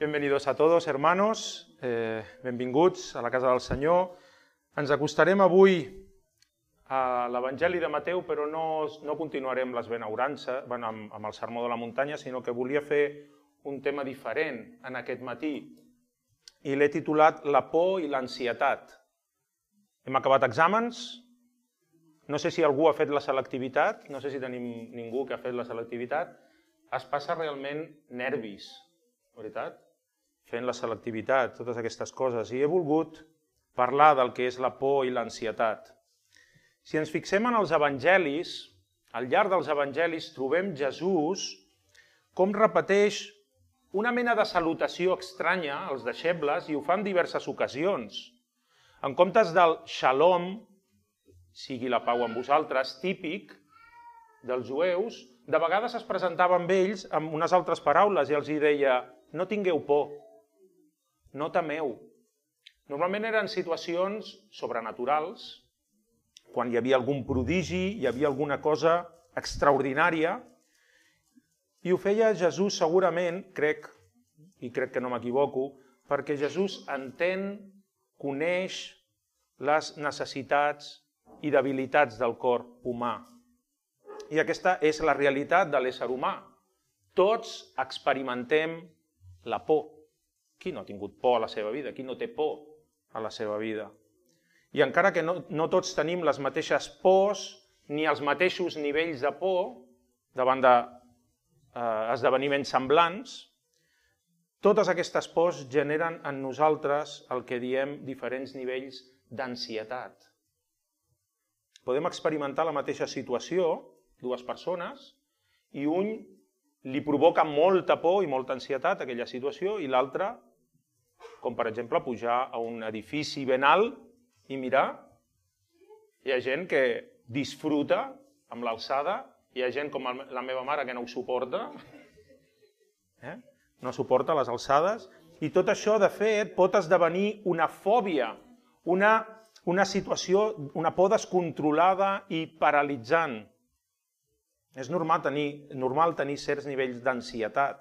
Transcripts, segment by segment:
Bienvenidos a todos, hermanos, benvinguts a la casa del Senyor. Ens acostarem avui a l'Evangeli de Mateu, però no continuarem les benaurances amb el sermó de la muntanya, sinó que volia fer un tema diferent en aquest matí. I l'he titulat La por i l'ansietat. Hem acabat exàmens. No sé si algú ha fet la selectivitat, no sé si tenim ningú que ha fet la selectivitat. Es passa realment nervis, veritat? Fent la selectivitat, totes aquestes coses. I he volgut parlar del que és la por i l'ansietat. Si ens fixem en els evangelis, al llarg dels evangelis trobem Jesús com repeteix una mena de salutació estranya als deixebles i ho fa en diverses ocasions. En comptes del shalom, sigui la pau amb vosaltres, típic dels jueus, de vegades es presentava amb ells amb unes altres paraules i els deia: no tingueu por, no temeu. Normalment eren situacions sobrenaturals, quan hi havia algun prodigi, hi havia alguna cosa extraordinària, i ho feia Jesús segurament, crec que no m'equivoco, perquè Jesús entén, coneix les necessitats i debilitats del cor humà. I aquesta és la realitat de l'ésser humà. Tots experimentem la por. Qui no ha tingut por a la seva vida? Qui no té por a la seva vida? I encara que no tots tenim les mateixes pors ni els mateixos nivells de por davant d'esdeveniments semblants, totes aquestes pors generen en nosaltres el que diem diferents nivells d'ansietat. Podem experimentar la mateixa situació, dues persones, i un li provoca molta por i molta ansietat aquella situació i l'altre, com per exemple pujar a un edifici ben alt i mirar. Hi ha gent que disfruta amb l'alçada, hi ha gent com la meva mare que no ho suporta, no suporta les alçades, i tot això de fet pot esdevenir una fòbia, una situació, una por descontrolada i paralitzant. És normal tenir certs nivells d'ansietat.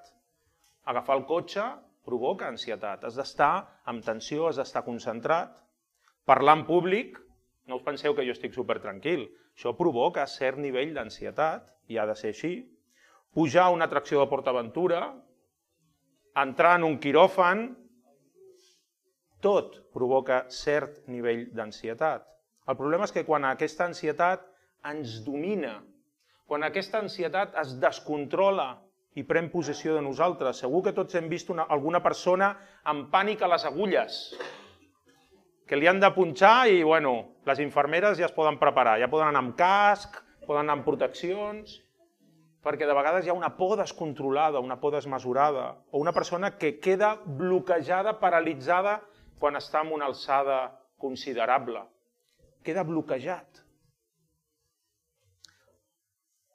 Agafar el cotxe provoca ansietat. Has d'estar amb tensió, has d'estar concentrat. Parlar en públic, no us penseu que jo estic supertranquil. Això provoca cert nivell d'ansietat, i ha de ser així. Pujar a una atracció de PortAventura, entrar en un quiròfan, tot provoca cert nivell d'ansietat. El problema és que quan aquesta ansietat ens domina, quan aquesta ansietat es descontrola i pren possessió de nosaltres, segur que tots hem vist alguna persona amb pànic a les agulles, que li han de punxar i, les infermeres ja es poden preparar, ja poden anar amb casc, poden anar amb proteccions, perquè de vegades hi ha una por descontrolada, una por desmesurada, o una persona que queda bloquejada, paralitzada, quan està en una alçada considerable. Queda bloquejat.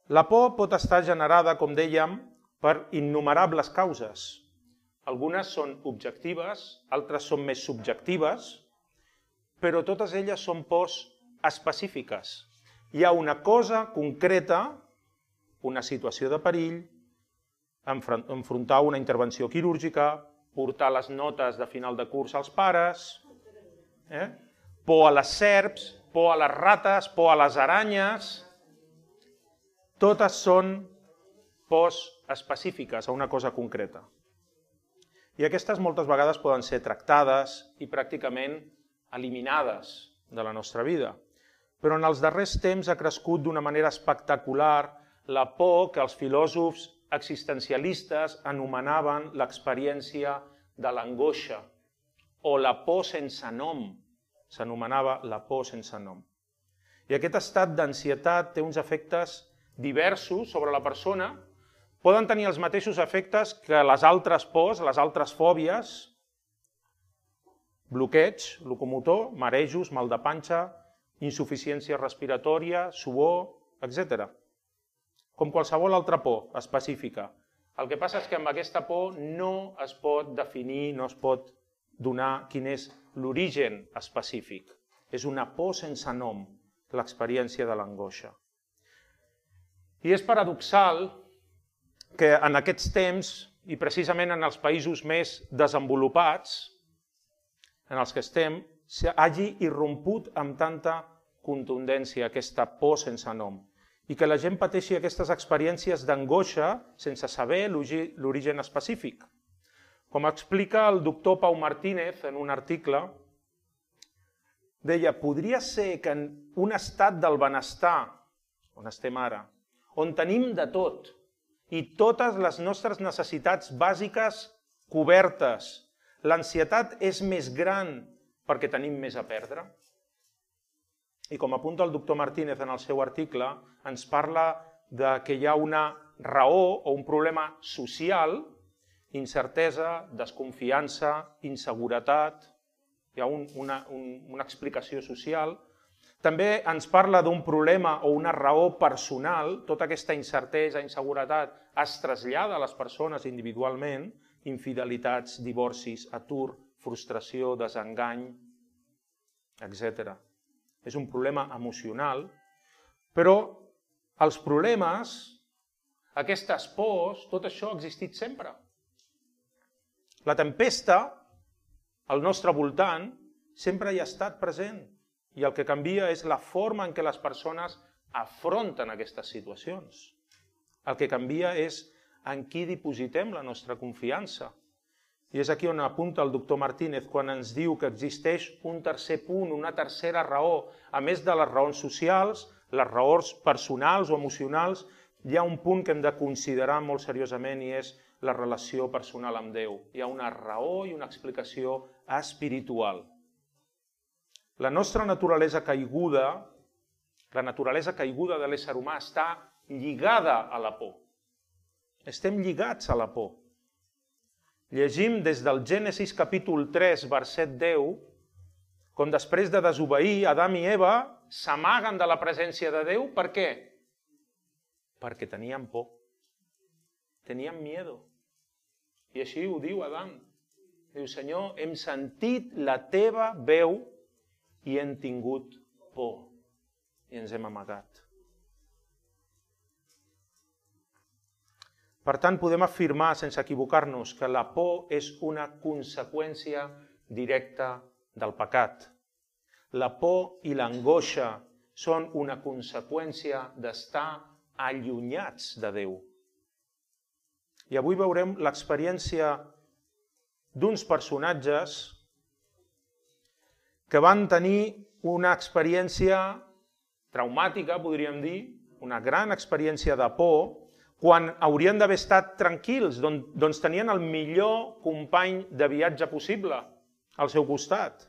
La por pot estar generada, com dèiem, per innumerables causes. Algunes són objectives, altres són més subjectives, però totes elles són pors específiques. Hi ha una cosa concreta, una situació de perill, enfrontar una intervenció quirúrgica, portar les notes de final de curs als pares, por a les serps, por a les rates, por a les aranyes. Totes són pors específiques a una cosa concreta. I aquestes moltes vegades poden ser tractades i pràcticament eliminades de la nostra vida. Però en els darrers temps ha crescut d'una manera espectacular la por que els filòsofs existencialistes anomenaven l'experiència de l'angoixa, o la por sense nom. S'anomenava la por sense nom. I aquest estat d'ansietat té uns efectes diversos sobre la persona, poden tenir els mateixos efectes que les altres pors, les altres fòbies, bloqueig locomotor, marejos, mal de panxa, insuficiència respiratòria, suor, etc. Com qualsevol altra por específica. El que passa és que amb aquesta por no es pot definir, no es pot donar quin és l'origen específic. És una por sense nom, l'experiència de l'angoixa. I és paradoxal que en aquests temps i precisament en els països més desenvolupats, en els que estem, hagi irromput amb tanta contundència aquesta por sense nom i que la gent pateixi aquestes experiències d'angoixa sense saber l'origen específic. Com explica el doctor Pau Martínez en un article, deia, podria ser que en un estat del benestar, on estem ara, on tenim de tot i totes les nostres necessitats bàsiques cobertes, l'ansietat és més gran perquè tenim més a perdre? I com apunta el doctor Martínez en el seu article, ens parla de que hi ha una raó o un problema social, incertesa, desconfiança, inseguretat, hi ha una explicació social. També ens parla d'un problema o una raó personal, tota aquesta incertesa, inseguretat es trasllada a les persones individualment, infidelitats, divorcis, atur, frustració, desengany, etc. És un problema emocional, però els problemes, aquestes pors, tot això ha existit sempre. La tempesta, al nostre voltant, sempre hi ha estat present i el que canvia és la forma en què les persones afronten aquestes situacions. El que canvia és en qui dipositem la nostra confiança. I és aquí on apunta el doctor Martínez quan ens diu que existeix un tercer punt, una tercera raó. A més de les raons socials, les raons personals o emocionals, hi ha un punt que hem de considerar molt seriosament i és la relació personal amb Déu. Hi ha una raó i una explicació espiritual. La nostra naturalesa caiguda, la naturalesa caiguda de l'ésser humà està lligada a la por. Estem lligats a la por. Llegim des del Gènesis capítol 3, verset 10, com després de desobeir, Adam i Eva s'amaguen de la presència de Déu. Per què? Perquè tenien por. Tenien miedo. I així ho diu Adam. Diu, Senyor, hem sentit la teva veu i hem tingut por. I ens hem amagat. Per tant, podem afirmar, sense equivocar-nos, que la por és una conseqüència directa del pecat. La por i l'angoixa són una conseqüència d'estar allunyats de Déu. I avui veurem l'experiència d'uns personatges que van tenir una experiència traumàtica, podríem dir, una gran experiència de por, quan haurien d'haver estat tranquils, doncs tenien el millor company de viatge possible al seu costat.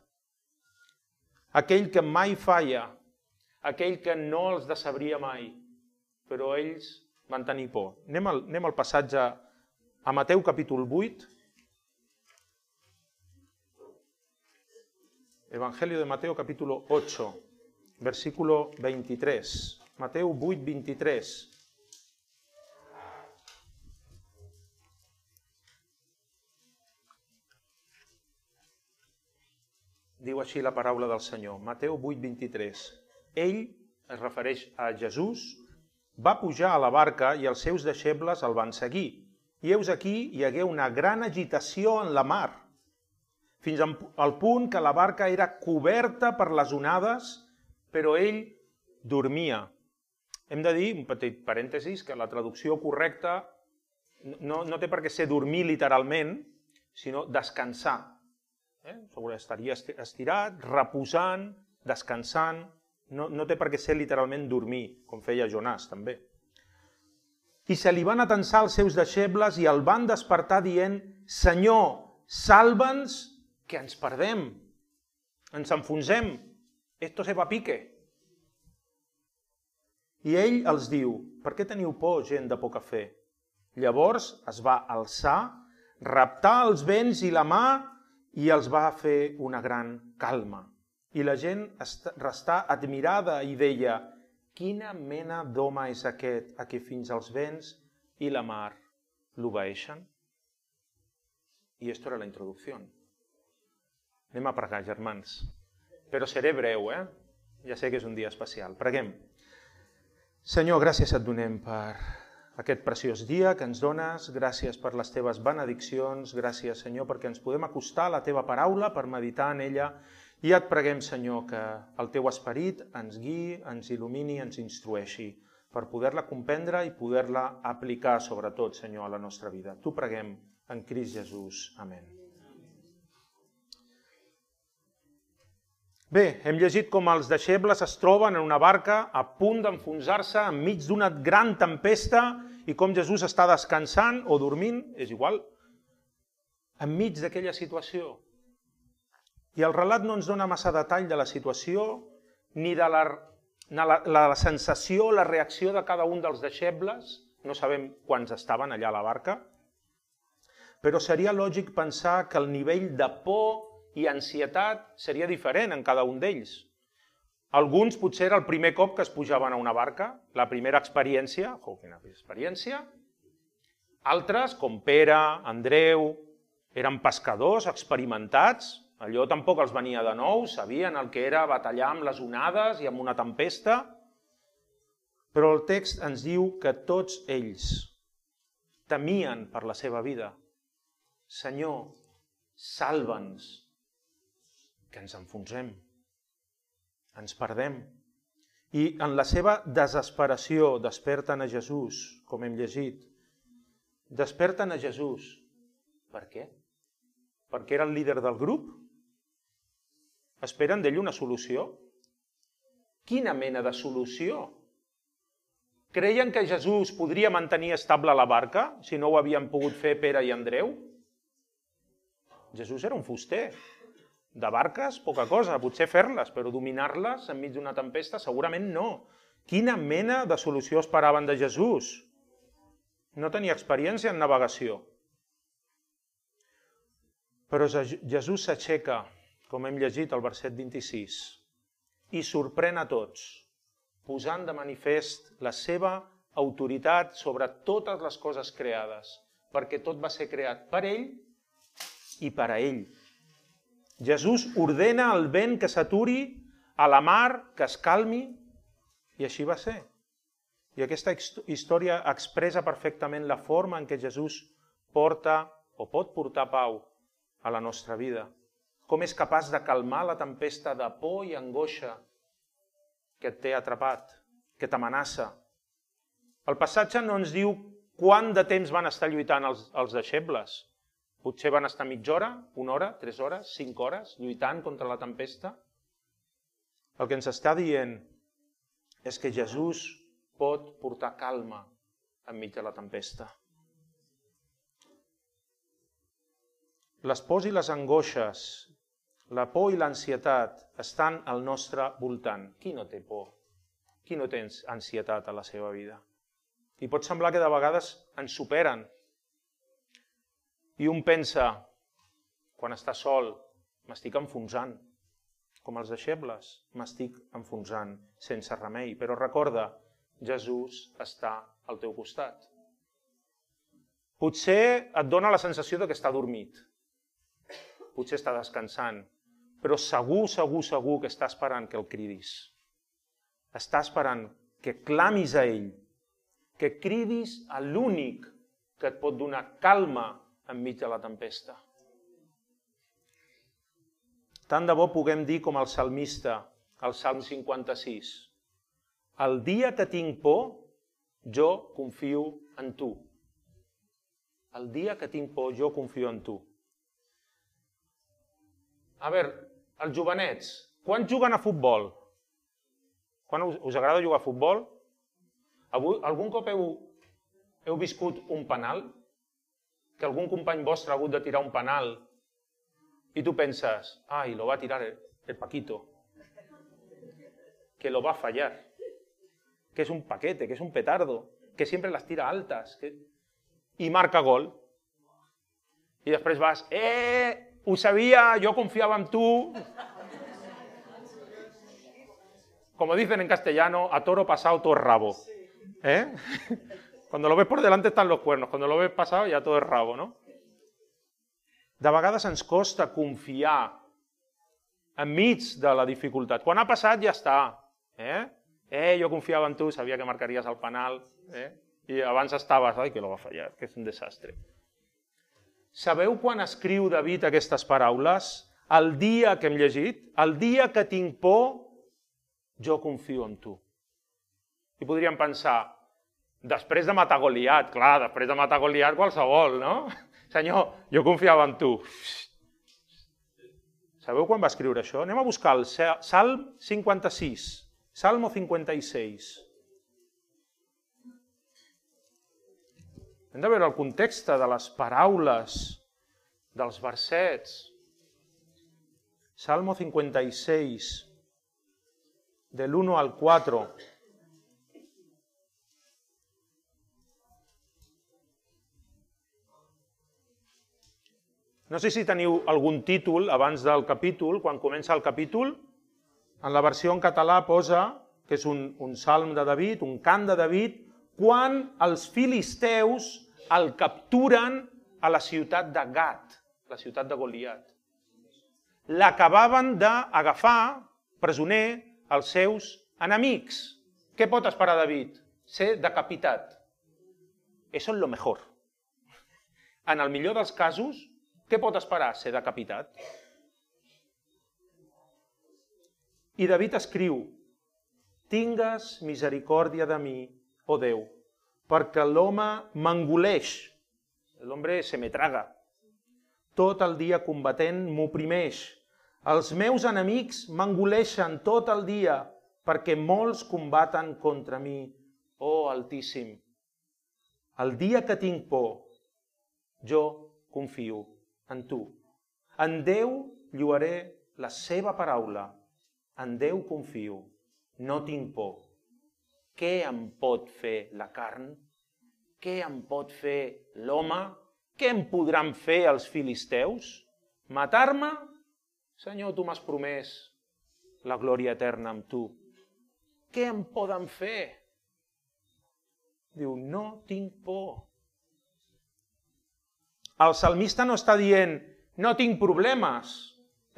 Aquell que mai falla, aquell que no els decebria mai, però ells van tenir por. Anem al passatge a Mateu capítol 8. Evangelio de Mateo capítulo 8, versículo 23. Mateu 8, 23. Diu així la paraula del Senyor, Mateu 8, 23. Ell, es refereix a Jesús, va pujar a la barca i els seus deixebles el van seguir. I heus aquí hi hagué una gran agitació en la mar, fins al punt que la barca era coberta per les onades, però ell dormia. Hem de dir, un petit parèntesis, que la traducció correcta no té per què ser dormir literalment, sinó descansar. Estaria estirat, reposant, descansant, no té per què ser literalment dormir, com feia Jonàs també. I se li van atensar els seus deixebles i el van despertar dient, Senyor, salva'ns que ens perdem, ens enfonsem, esto se va a pique. I ell els diu, per què teniu por, gent de poca fe? Llavors es va alçar, raptar els vents i la mar i els va fer una gran calma. I la gent restà admirada i deia, quina mena d'home és aquest a qui fins als vents i la mar l'obeeixen? I esto era la introducció. Anem a pregar, germans. Però seré breu, Ja sé que és un dia especial. Preguem. Senyor, gràcies et donem per aquest preciós dia que ens dones, gràcies per les teves benediccions, gràcies, Senyor, perquè ens podem acostar a la teva paraula per meditar en ella, i et preguem, Senyor, que el teu esperit ens guiï, ens il·lumini, ens instrueixi, per poder-la comprendre i poder-la aplicar, sobretot, Senyor, a la nostra vida. T'ho preguem en Crist Jesús. Amén. Bé, hem llegit com els deixebles es troben en una barca a punt d'enfonsar-se enmig d'una gran tempesta i com Jesús està descansant o dormint, és igual, enmig d'aquella situació. I el relat no ens dona massa detall de la situació ni de la sensació, la reacció de cada un dels deixebles. No sabem quants estaven allà a la barca, però seria lògic pensar que el nivell de por i ansietat seria diferent en cada un d'ells. Alguns potser era el primer cop que es pujaven a una barca, la primera experiència, quina experiència. Altres, com Pere, Andreu, eren pescadors experimentats, allò tampoc els venia de nou, sabien el que era batallar amb les onades i amb una tempesta, però el text ens diu que tots ells temien per la seva vida. Senyor, salva'ns, que ens enfonsem, ens perdem. I en la seva desesperació desperten a Jesús, com hem llegit. Desperten a Jesús. Per què? Perquè era el líder del grup? Esperen d'ell una solució? Quina mena de solució? Creien que Jesús podria mantenir estable la barca si no ho havien pogut fer Pere i Andreu? Jesús era un fuster. De barques, poca cosa, potser fer-les, però dominar-les enmig d'una tempesta segurament no. Quina mena de solució esperaven de Jesús? No tenia experiència en navegació. Però Jesús s'aixeca, com hem llegit al verset 26, i sorprèn a tots, posant de manifest la seva autoritat sobre totes les coses creades, perquè tot va ser creat per ell i per a ell. Jesús ordena al vent que s'aturi, a la mar que es calmi, i així va ser. I aquesta història expressa perfectament la forma en què Jesús porta o pot portar pau a la nostra vida. Com és capaç de calmar la tempesta de por i angoixa que et té atrapat, que t'amenaça. El passatge no ens diu quant de temps van estar lluitant els deixebles. Potser van estar mitja hora, 1 hora, 3 hores, 5 hores, lluitant contra la tempesta. El que ens està dient és que Jesús pot portar calma enmig de la tempesta. Les pors i les angoixes, la por i l'ansietat estan al nostre voltant. Qui no té por? Qui no té ansietat a la seva vida? I pot semblar que de vegades ens superen. I un pensa, quan està sol, m'estic enfonsant. Com els deixebles, m'estic enfonsant sense remei. Però recorda, Jesús està al teu costat. Potser et dona la sensació que està dormit. Potser està descansant. Però segur que està esperant que el cridis. Està esperant que clamis a ell, que cridis a l'únic que et pot donar calma enmig de la tempesta. Tant de bo puguem dir com el salmista, al Salm 56. El dia que tinc por, jo confio en tu. El dia que tinc por, jo confio en tu. A veure, els jovenets, quan juguen a futbol? Quan us agrada jugar a futbol? Algun cop heu viscut un penal? Que algun company vostre ha hagut de tirar un penal i tu penses, ai, lo va tirar el Paquito, que lo va fallar, que es un paquete, que es un petardo, que siempre las tira altas, i marca gol. I després vas, ho sabia, yo confiaba en tu. Como dicen en castellano, a toro pasado todo es rabo. Cuando lo ves por delante están los cuernos, cuando lo ves pasado ya todo es rabo, ¿no? De vegades ens costa confiar enmig de la dificultat. Quan ha passat ja està. Jo confiava en tu, sabia que marcaries el penal. I abans estaves, ai, que lo va fallar, que és un desastre. Sabeu quan escriu David aquestes paraules? El dia que hem llegit, el dia que tinc por, jo confio en tu. I podríem pensar, després de matar Goliat, clar, després de matar Goliat qualsevol, no? Senyor, jo confiava en tu. Sabeu quan va escriure això? Anem a buscar el Salm 56, Salmo 56. Hem de veure el context de les paraules, dels versets. Salmo 56, del 1 al 4. No sé si teniu algun títol abans del capítol, quan comença el capítol. En la versió en català posa que és un salm de David, un cant de David, quan els filisteus el capturen a la ciutat de Gat, la ciutat de Goliat. L'acabaven d'agafar presoner els seus enemics. Què pot esperar David? Ser decapitat. Eso es lo mejor. En el millor dels casos, què pot esperar? Ser decapitat. I David escriu, tingues misericòrdia de mi, oh Déu, perquè l'home m'engoleix, l'home se me traga, tot el dia combatent m'oprimeix, els meus enemics m'engoleixen tot el dia, perquè molts combaten contra mi, oh Altíssim. El dia que tinc por, jo confio en tu. En Déu lloaré la seva paraula. En Déu confio. No tinc por. Què em pot fer la carn? Què em pot fer l'home? Què em podran fer els filisteus? Matar-me? Senyor, tu m'has promès la glòria eterna amb tu. Què em poden fer? Diu, no tinc por. El salmista no està dient, no tinc problemes.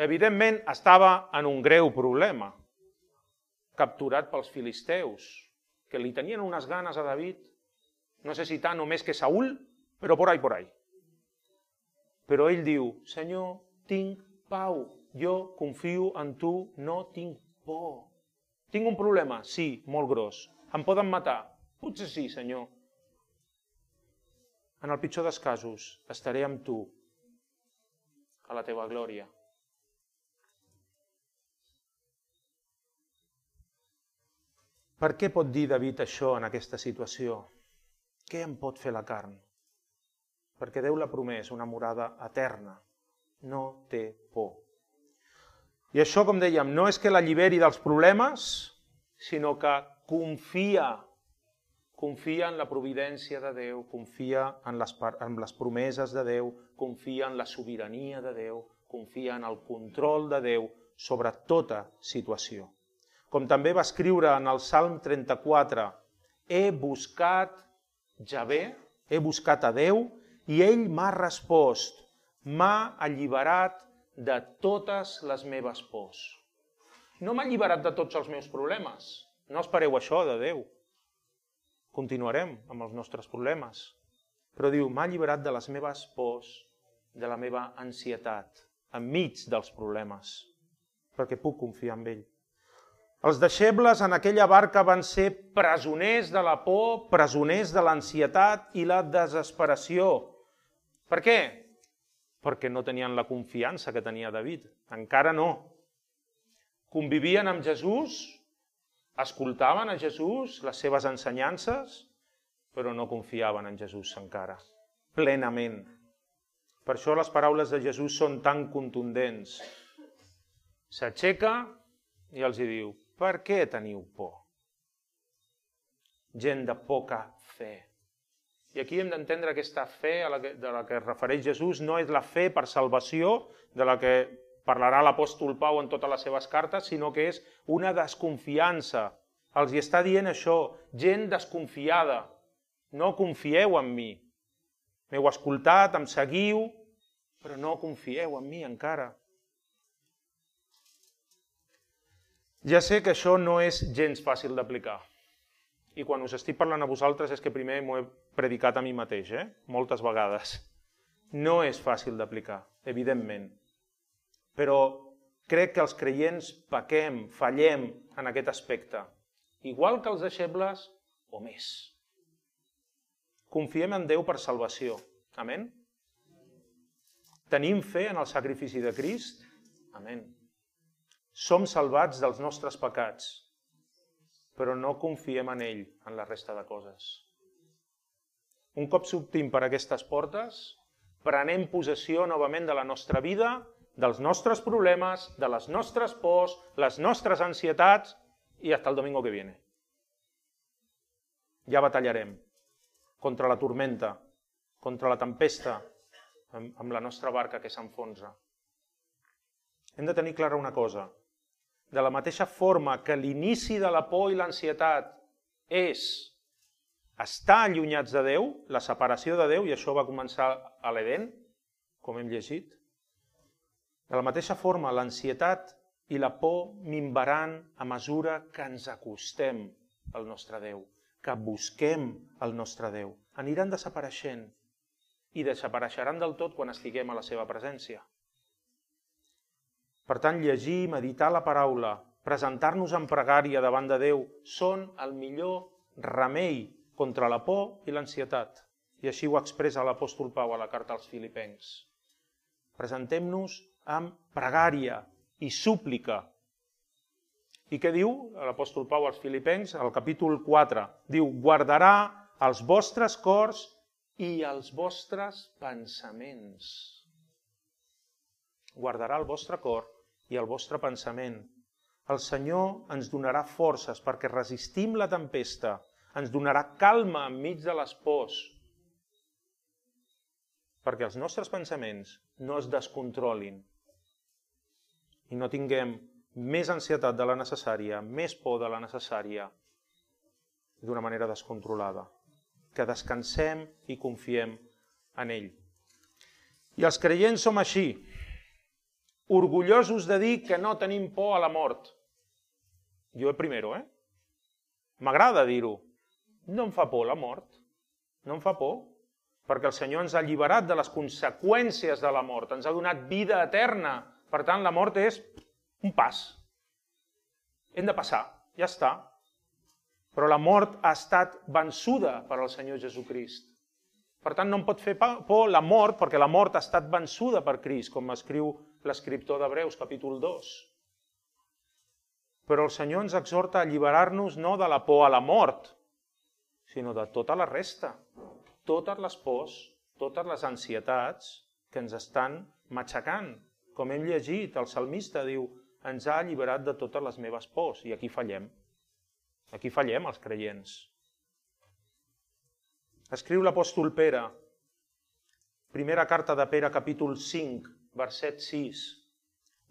Evidentment, estava en un greu problema, capturat pels filisteus, que li tenien unes ganes a David, no sé si tant o més que Saúl, però por ahí. Però ell diu, Senyor, tinc pau, jo confio en tu, no tinc por. Tinc un problema? Sí, molt gros. Em poden matar? Potser sí, Senyor. En el pitjor dels casos, estaré amb tu a la teva glòria. Per què pot dir David això en aquesta situació? Què em pot fer la carn? Perquè Déu l'ha promès una morada eterna. No té por. I això, com dèiem, no és que l'alliberi dels problemes, sinó que confia en la providència de Déu, confia en les promeses de Déu, confia en la sobirania de Déu, confia en el control de Déu sobre tota situació. Com també va escriure en el Salm 34, he buscat Javé, he buscat a Déu, i ell m'ha respost, m'ha alliberat de totes les meves pors. No m'ha alliberat de tots els meus problemes. No espereu això de Déu. Continuarem amb els nostres problemes. Però diu, m'ha alliberat de les meves pors, de la meva ansietat, enmig dels problemes, perquè puc confiar en ell. Els deixebles en aquella barca van ser presoners de la por, presoners de l'ansietat i la desesperació. Per què? Perquè no tenien la confiança que tenia David. Encara no. Convivien amb Jesús, escoltaven a Jesús, les seves ensenyances, però no confiaven en Jesús encara, plenament. Per això les paraules de Jesús són tan contundents. S'aixeca i els diu, per què teniu por? Gent de poca fe. I aquí hem d'entendre aquesta fe de la que es refereix Jesús, no és la fe per salvació, de la que parlarà l'apòstol Pau en totes les seves cartes, sinó que és una desconfiança. Els hi està dient això, gent desconfiada, no confieu en mi. M'heu escoltat, em seguiu, però no confieu en mi encara. Ja sé que això no és gens fàcil d'aplicar. I quan us estic parlant a vosaltres és que primer m'ho he predicat a mi mateix, moltes vegades. No és fàcil d'aplicar, evidentment. Però crec que els creients pequem, fallem en aquest aspecte. Igual que els deixebles o més. Confiem en Déu per salvació. Amén? Tenim fe en el sacrifici de Crist? Amén. Som salvats dels nostres pecats, però no confiem en ell, en la resta de coses. Un cop sortim per aquestes portes, prenem possessió novament de la nostra vida, dels nostres problemes, de les nostres pors, les nostres ansietats, i hasta el domingo que viene. Ja batallarem contra la tormenta, contra la tempesta, amb la nostra barca que s'enfonsa. Hem de tenir clara una cosa. De la mateixa forma que l'inici de la por i l'ansietat és estar allunyats de Déu, la separació de Déu, i això va començar a l'Edén, com hem llegit, de la mateixa forma l'ansietat i la por minvaran a mesura que ens acostem al nostre Déu, que busquem el nostre Déu. Aniran desapareixent i desapareixeran del tot quan estiguem a la seva presència. Per tant, llegir, meditar la paraula, presentar-nos en pregària davant de Déu són el millor remei contra la por i l'ansietat. I així ho expressa l'apòstol Pau a la carta als Filipencs. Presentem-nos amb pregària i súplica. I què diu l'apòstol Pau als Filipencs? Al capítol 4 diu: guardarà els vostres cors i els vostres pensaments. Guardarà el vostre cor i el vostre pensament. El Senyor ens donarà forces perquè resistim la tempesta, ens donarà calma enmig de les pors, perquè els nostres pensaments no es descontrolin i no tinguem més ansietat de la necessària, més por de la necessària, d'una manera descontrolada. Que descansem i confiem en ell. I els creients som així, orgullosos de dir que no tenim por a la mort. Jo primero, M'agrada dir-ho. No em fa por la mort. No em fa por. Perquè el Senyor ens ha alliberat de les conseqüències de la mort. Ens ha donat vida eterna. Per tant, la mort és un pas. Hem de passar. Ja està. Però la mort ha estat vençuda per al Senyor Jesucrist. Per tant, no em pot fer por la mort, perquè la mort ha estat vençuda per Crist, com escriu l'escriptor d'Hebreus, capítol 2. Però el Senyor ens exhorta a alliberar-nos no de la por a la mort, sinó de tota la resta. Totes les pors, totes les ansietats que ens estan matxacant. Com hem llegit, el salmista diu: ens ha alliberat de totes les meves pors. I aquí fallem. Aquí fallem els creients. Escriu l'apòstol Pere, primera carta de Pere, capítol 5, verset 6.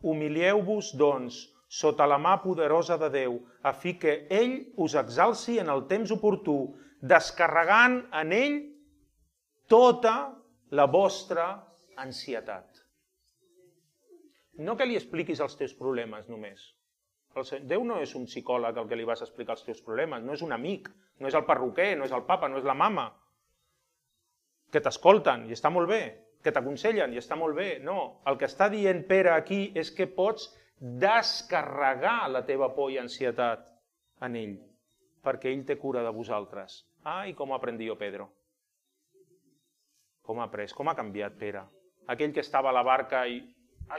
Humilieu-vos, doncs, sota la mà poderosa de Déu, a fi que ell us exalci en el temps oportú, descarregant en ell tota la vostra ansietat. No que li expliquis els teus problemes només. Déu no és un psicòleg al que li vas explicar els teus problemes, no és un amic, no és el perruquer, no és el papa, no és la mama, que t'escolten i està molt bé, que t'aconsellen i està molt bé. No, el que està dient Pere aquí és que pots descarregar la teva por i ansietat en ell, perquè ell té cura de vosaltres. I com ha après jo, Pedro? Com ha après? Com ha canviat Pere? Aquell que estava a la barca i...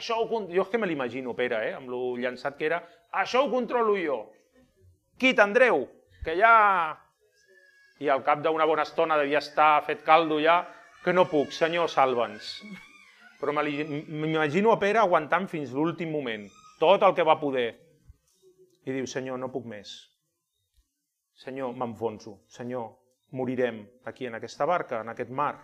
Jo és que me l'imagino, Pere, amb lo llançat que era. Això ho controlo jo. Quit, Andreu, que ja... I al cap d'una bona estona devia estar fet caldo ja, que no puc, Senyor, salva'ns. Però m'imagino a Pere aguantant fins l'últim moment, tot el que va poder. I diu: Senyor, no puc més. Senyor, m'enfonso. Senyor, morirem aquí en aquesta barca, en aquest mar.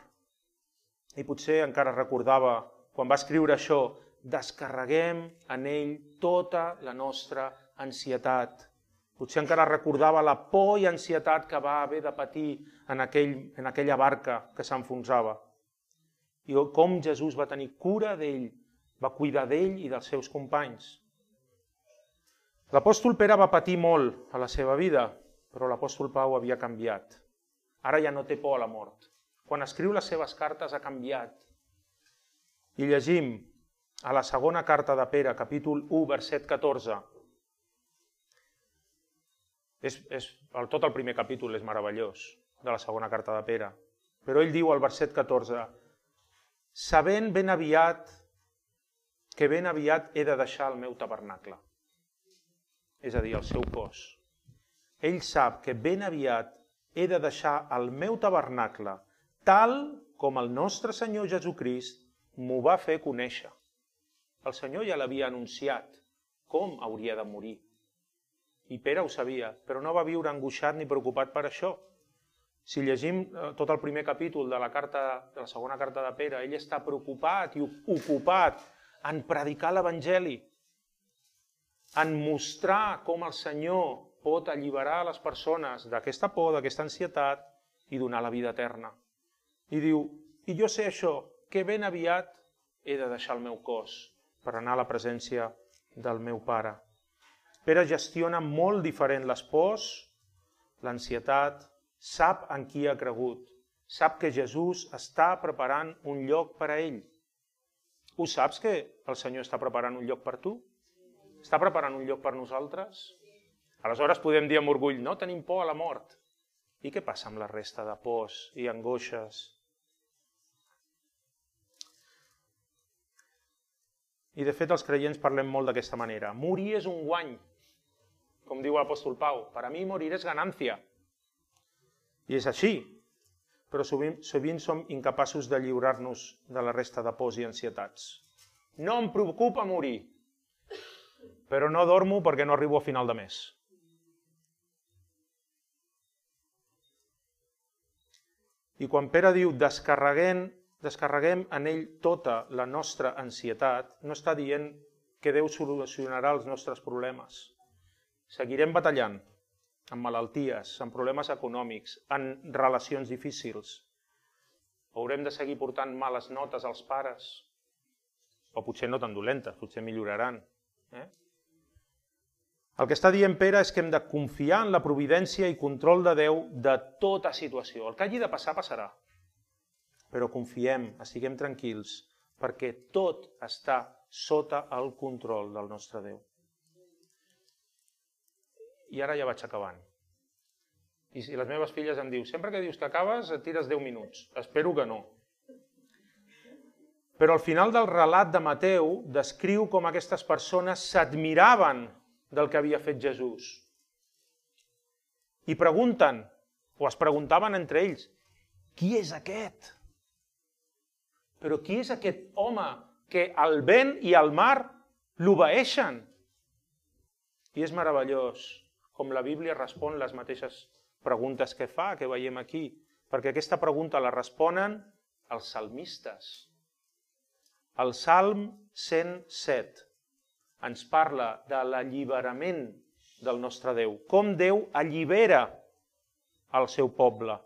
I potser encara recordava, quan va escriure això, descarreguem en ell tota la nostra ansietat. Potser encara recordava la por i ansietat que va haver de patir en aquella barca que s'enfonsava. I com Jesús va tenir cura d'ell, va cuidar d'ell i dels seus companys. L'apòstol Pere va patir molt a la seva vida, però l'apòstol Pau havia canviat. Ara ja no té por a la mort. Quan escriu les seves cartes ha canviat. I llegim a la segona carta de Pere, capítol 1, verset 14. Tot el primer capítol és meravellós, de la segona carta de Pere. Però ell diu al verset 14, sabent ben aviat que ben aviat he de deixar el meu tabernacle, és a dir, el seu cos. Ell sap que ben aviat he de deixar el meu tabernacle, tal com el nostre Senyor Jesucrist m'ho va fer conèixer. El Senyor ja l'havia anunciat com hauria de morir. I Pere ho sabia, però no va viure angoixat ni preocupat per això. Si llegim tot el primer capítol de la segona carta de Pere, ell està preocupat i ocupat en predicar l'Evangeli, en mostrar com el Senyor pot alliberar les persones d'aquesta por, d'aquesta ansietat i donar la vida eterna. I diu, i jo sé això, que ben aviat he de deixar el meu cos per anar a la presència del meu Pare. Pere gestiona molt diferent les pors, l'ansietat, sap en qui ha cregut, sap que Jesús està preparant un lloc per a ell. Ho saps que el Senyor està preparant un lloc per tu? Està preparant un lloc per nosaltres? Aleshores podem dir amb orgull, no tenim por a la mort. I què passa amb la resta de pors i angoixes? I de fet els creients parlem molt d'aquesta manera. Morir és un guany, com diu l'apòstol Pau. Per a mi morir és ganància. I és així, però sovint som incapaços de lliurar-nos de la resta de pors i ansietats. No em preocupa morir, però no dormo perquè no arribo a final de mes. I quan Pere diu descarreguem en ell tota la nostra ansietat, no està dient que Déu solucionarà els nostres problemes. Seguirem batallant amb malalties, amb problemes econòmics, en relacions difícils. Haurem de seguir portant males notes als pares, o potser no tan dolentes, potser milloraran. El que està dient Pere és que hem de confiar en la providència i control de Déu de tota situació. El que hagi de passar, passarà. Però confiem, estiguem tranquils, perquè tot està sota el control del nostre Déu. I ara ja vaig acabant. I si les meves filles em diuen, sempre que dius que acabes et tires 10 minuts. Espero que no. Però al final del relat de Mateu descriu com aquestes persones s'admiraven del que havia fet Jesús. I pregunten, o es preguntaven entre ells, qui és aquest? Però qui és aquest home que el vent i el mar l'obeeixen? I és meravellós com la Bíblia respon les mateixes preguntes que fa, que veiem aquí, perquè aquesta pregunta la responen els salmistes. El Salm 107 ens parla de l'alliberament del nostre Déu, com Déu allibera el seu poble.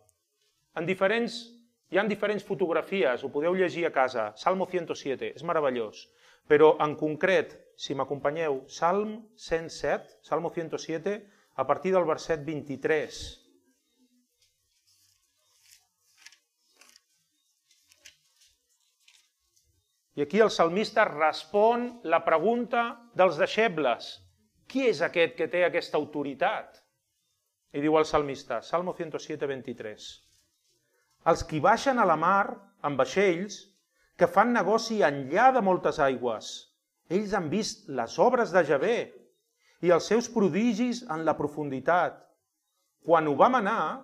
Hi ha diferents fotografies, ho podeu llegir a casa, Salmo 107, és meravellós. Però en concret, si m'acompanyeu, Salm 107, Salmo 107, a partir del verset 23. I aquí el salmista respon la pregunta dels deixebles. Qui és aquest que té aquesta autoritat? I diu el salmista, Salmo 107, 23. Els qui baixen a la mar amb vaixells, que fan negoci enllà de moltes aigües. Ells han vist les obres de Javé i els seus prodigis en la profunditat. Quan ho va manar,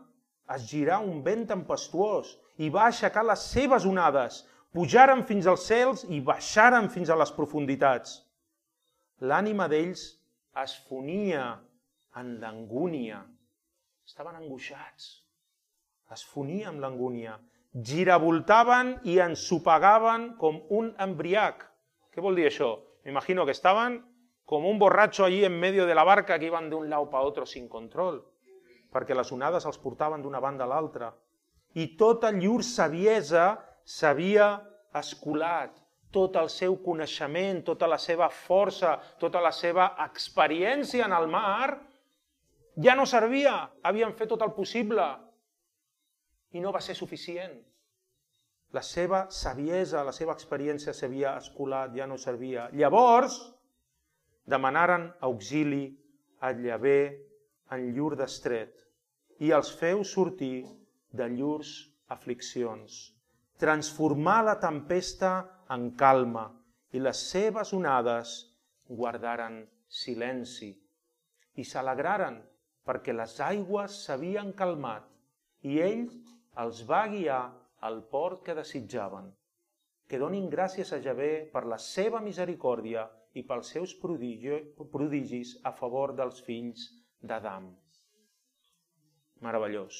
es girà un vent tempestuós i va aixecar les seves onades, pujaren fins als cels i baixaren fins a les profunditats. L'ànima d'ells es fonia en l'angúnia. Estaven angoixats. Es fonia amb l'angúnia. Giravoltaven i ensopegaven com un embriac. Què vol dir això? M'imagino que estaven com un borratxo allí en medio de la barca que iban de un lado para otro sin control, perquè les onades els portaven d'una banda a l'altra. I tota llur saviesa s'havia escolat, tot el seu coneixement, tota la seva força, tota la seva experiència en el mar, Ja no servia, havien fet tot el possible i no va ser suficient. La seva saviesa, la seva experiència s'havia escolat, ja no servia. Llavors, demanaren auxili a Llavé en llur destret i els feu sortir de llurs afliccions. Transformar la tempesta en calma i les seves onades guardaren silenci i s'alegraren perquè les aigües s'havien calmat i ell els va guiar al port que desitjaven. Que donin gràcies a Llavé per la seva misericòrdia i pels seus prodigis a favor dels fills d'Adam. Meravellós.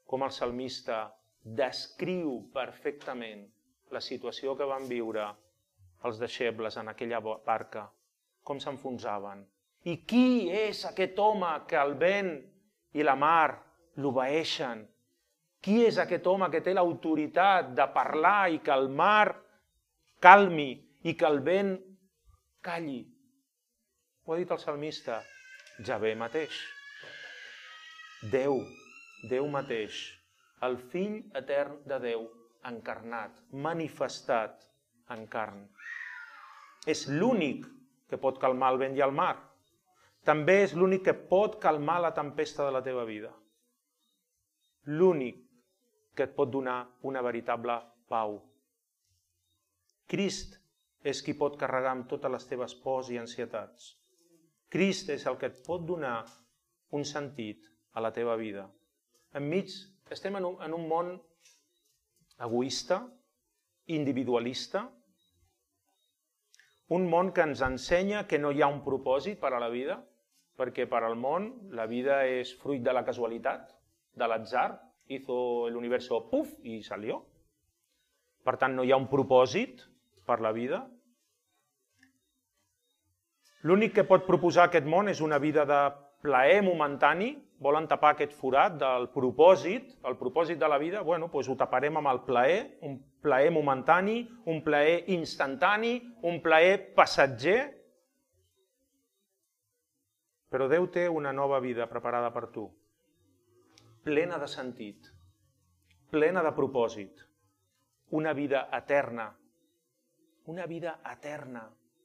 Com el salmista descriu perfectament la situació que van viure els deixebles en aquella barca, com s'enfonsaven. I qui és aquest home que el vent i la mar l'obeeixen? Qui és aquest home que té l'autoritat de parlar i que el mar calmi i que el vent calli? Ho ha dit el salmista, Llavé mateix. Déu mateix, el fill etern de Déu, encarnat, manifestat en carn. És l'únic que pot calmar el vent i el mar. També és l'únic que pot calmar la tempesta de la teva vida. L'únic que et pot donar una veritable pau. Crist és qui pot carregar amb totes les teves pors i ansietats. Crist és el que et pot donar un sentit a la teva vida. Estem en un món egoista, individualista, un món que ens ensenya que no hi ha un propòsit per a la vida, perquè per al món la vida és fruit de la casualitat, de l'atzar, hizo el universo puf i salió. Per tant, no hi ha un propòsit per la vida. L'únic que pot proposar aquest món és una vida de plaer momentani, volen tapar aquest forat del propòsit, el propòsit de la vida, doncs ho taparem amb el plaer, un plaer momentani, un plaer instantani, un plaer passatger. Però Déu té una nova vida preparada per tu, plena de sentit, plena de propòsit, una vida eterna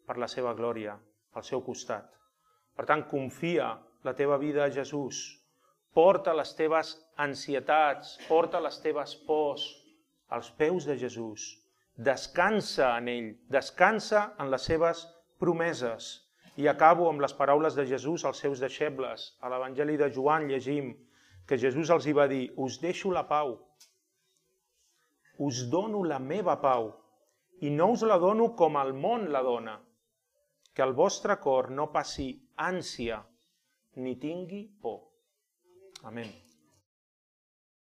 per la seva glòria, al seu costat. Per tant, confia la teva vida a Jesús, porta les teves ansietats, porta les teves pors als peus de Jesús, descansa en ell, descansa en les seves promeses. I acabo amb les paraules de Jesús als seus deixebles. A l'Evangeli de Joan llegim que Jesús els hi va dir: us deixo la pau, us dono la meva pau, i no us la dono com el món la dona, que el vostre cor no passi ànsia ni tingui por. Amén.